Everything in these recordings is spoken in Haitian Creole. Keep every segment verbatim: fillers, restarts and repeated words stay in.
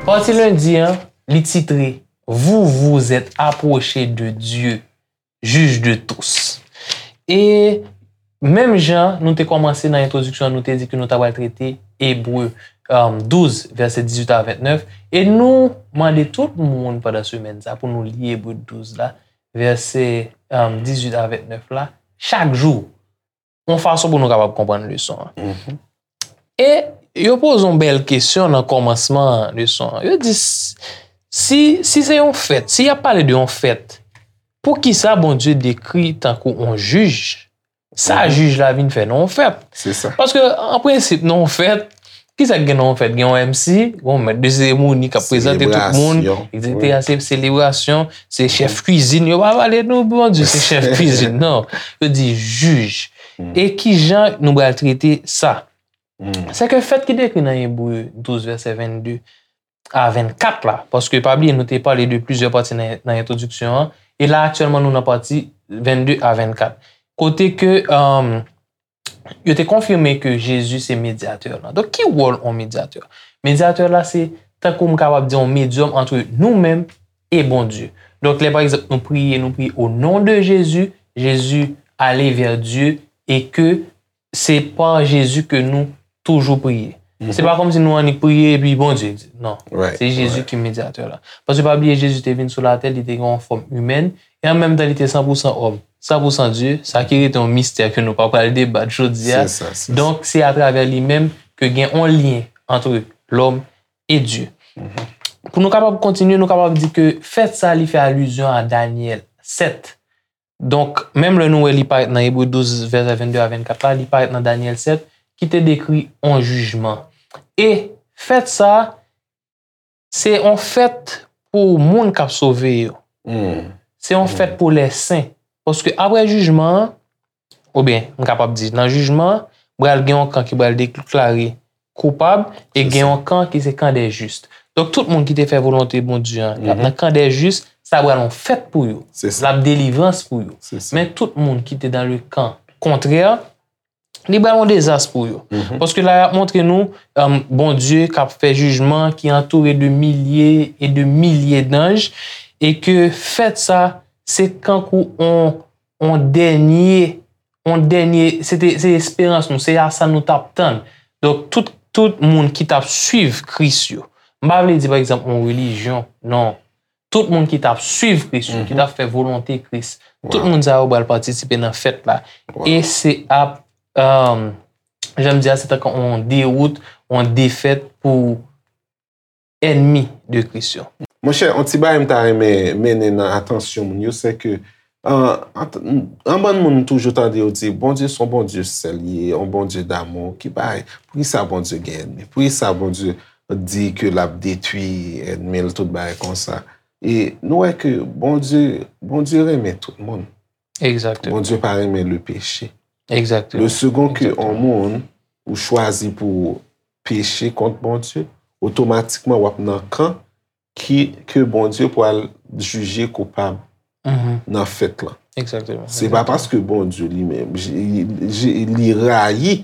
Pati lendi an, li titre Vous vous êtes approchés de Dieu, juge de tous. E menm jan nou te kòmanse nan entwodiksyon an, nou te di ke nou ta pral trete Ebre, um, douz, vèsè dizuit a ventnèf. E nou mande tout moun pandan semèn sa pou nou li Ebre douz la, vèsè, um, dizuit a ventnèf la, chak jou, yon fason pou nou kapab konprann leson an. E yo poze yon bèl kesyon nan kòmansman leson an. Yo di, s- si, si se yon fèt, si y ap pale de yon fèt, poukisa Bondye dekri tankou yon jij? Sa jij la vin fè nan yon fèt? Se sa. Paske, an prensip, nan yon fèt, kisa k gen nan yon fèt? Gen yon M C, gen yon mèt de seremoni k ap prezante tout moun, Selebrasyon. etsetera. Se selebrasyon, se chèf kwizin. Yo pa pale nou, Bondye, se chèf kwizin, non. Yo di jij. E ki jan nou pral trete sa? Se ke fèt ki dekri nan Ebre douz, vèsè vennde a vennkat la, paske pa bliye, nou te pale de plizyè pati nan, nan entwodiksyon an, e la, aktyèlman, nou nan pati vennde a vennkat. Kote ke, um, yo te konfime ke Jezi se medyatè la. Donk, ki wòl yon medyatè? Medyatè la, se tankou m kapab di yon medyòm ant nou menm e Bondye. Donk, lè, pa egzanp, nou priye, nou priye au nom de Jésus, Jésus aller vers Dieu, e ke se pa Jezi ke nou toujou priye. Se pa kòmsi nou annik priye epi Bondye di. Non. Right, Se Jezi right. ki medyatè la. Paske pa bliye, Jezi te vin sou latè, li te gen yon fòm imèn, e an menm tan, li te san pou san òm, san pou san Dye, sa ki rete yon mistè ke nou pa pral debat jodi a. Se sa, se sa. Donk, se atravè li menm ke gen yon lyen ant lòm e Dye. Pou nou kapab kontinye, nou kapab di ke fèt sa, li fè alizyon a Danyèl sèt. Donk, menm lè nou wè li parèt nan Ebre douz, vèsè vennde a vennkat la, li parèt nan Danyèl sèt, ki te dekri yon jijman. E fèt sa, se yon fèt pou moun k ap sove yo. Se yon fèt pou lè sen. Paske apre jijman an, oubyen, m kapab di, nan jijman an, pral gen yon kan ki pral deklare koupab, e gen yon kan ki se kan dè jis. Donk, tout moun ki te fè volonte Bondye an, y ap nan kan dè jis, sa pral yon fèt pou yo. Se sa. L ap delivrans pou yo. Se sa. Men tout moun ki te dans le camp contraire, li pral yon dezas pou yo. Paske la, y ap montre nou, um, Bondye k ap fè jijman, ki antoure de milye e de milye danj, e ke fèt sa, se kankou on, on dènye, on dènye, se te, se esperans nou, se a sa nou t ap tann. Donk, tout, tout moun ki t ap swiv Kris yo. M pa vle di, pa egzanp, on relijyon, non. Tout moun ki t ap swiv Kris yo, ki t ap fè volonte Kris. Tout moun sa yo pral patisipe nan fèt la. E se ap, um, jan m di a, se tankou on dewout, on defèt pou ènmi de Kris yo. Monchè, on ti bagay m ta renmen mennen nan atansyon moun yo, se ke, an, an, an bann moun toujou tande yo di, Bondye se yon Bondye sèl li ye, yon Bondye damou, ki bagay, poukisa Bondye gen ènmi? Poukisa Bondye di ke l ap detwi ènmi l, tout bagay konsa? E nou wè ke Bondye, Bondye renmen tout moun. Egzakteman. Bondye pa renmen le péché. Egzakteman. Le second ke yon moun ou chwazi pou peche kont Bondye, otomatikman w ap nan kan ki, ke Bondye pral jije koupab nan fèt lan. Egzakteman. Se pa paske Bondye li menm, li, li, li rayi,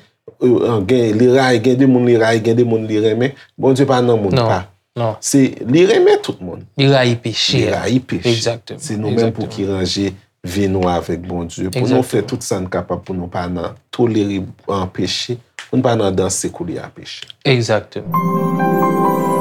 euh, gen, li rayi, gen de moun li rayi, gen de moun li renmen. Bondye pa nan moun pa. Non. Se, li renmen tout moun. Li rayi peche. Li rayi peche. Egzakteman. Se nou menm pou ki ranje vi nou avèk Bondye. Pou nou fè tout sa n kapab pou nou pa nan tolere an peche, pou nou pa nan danse koulye a peche. Egzakteman.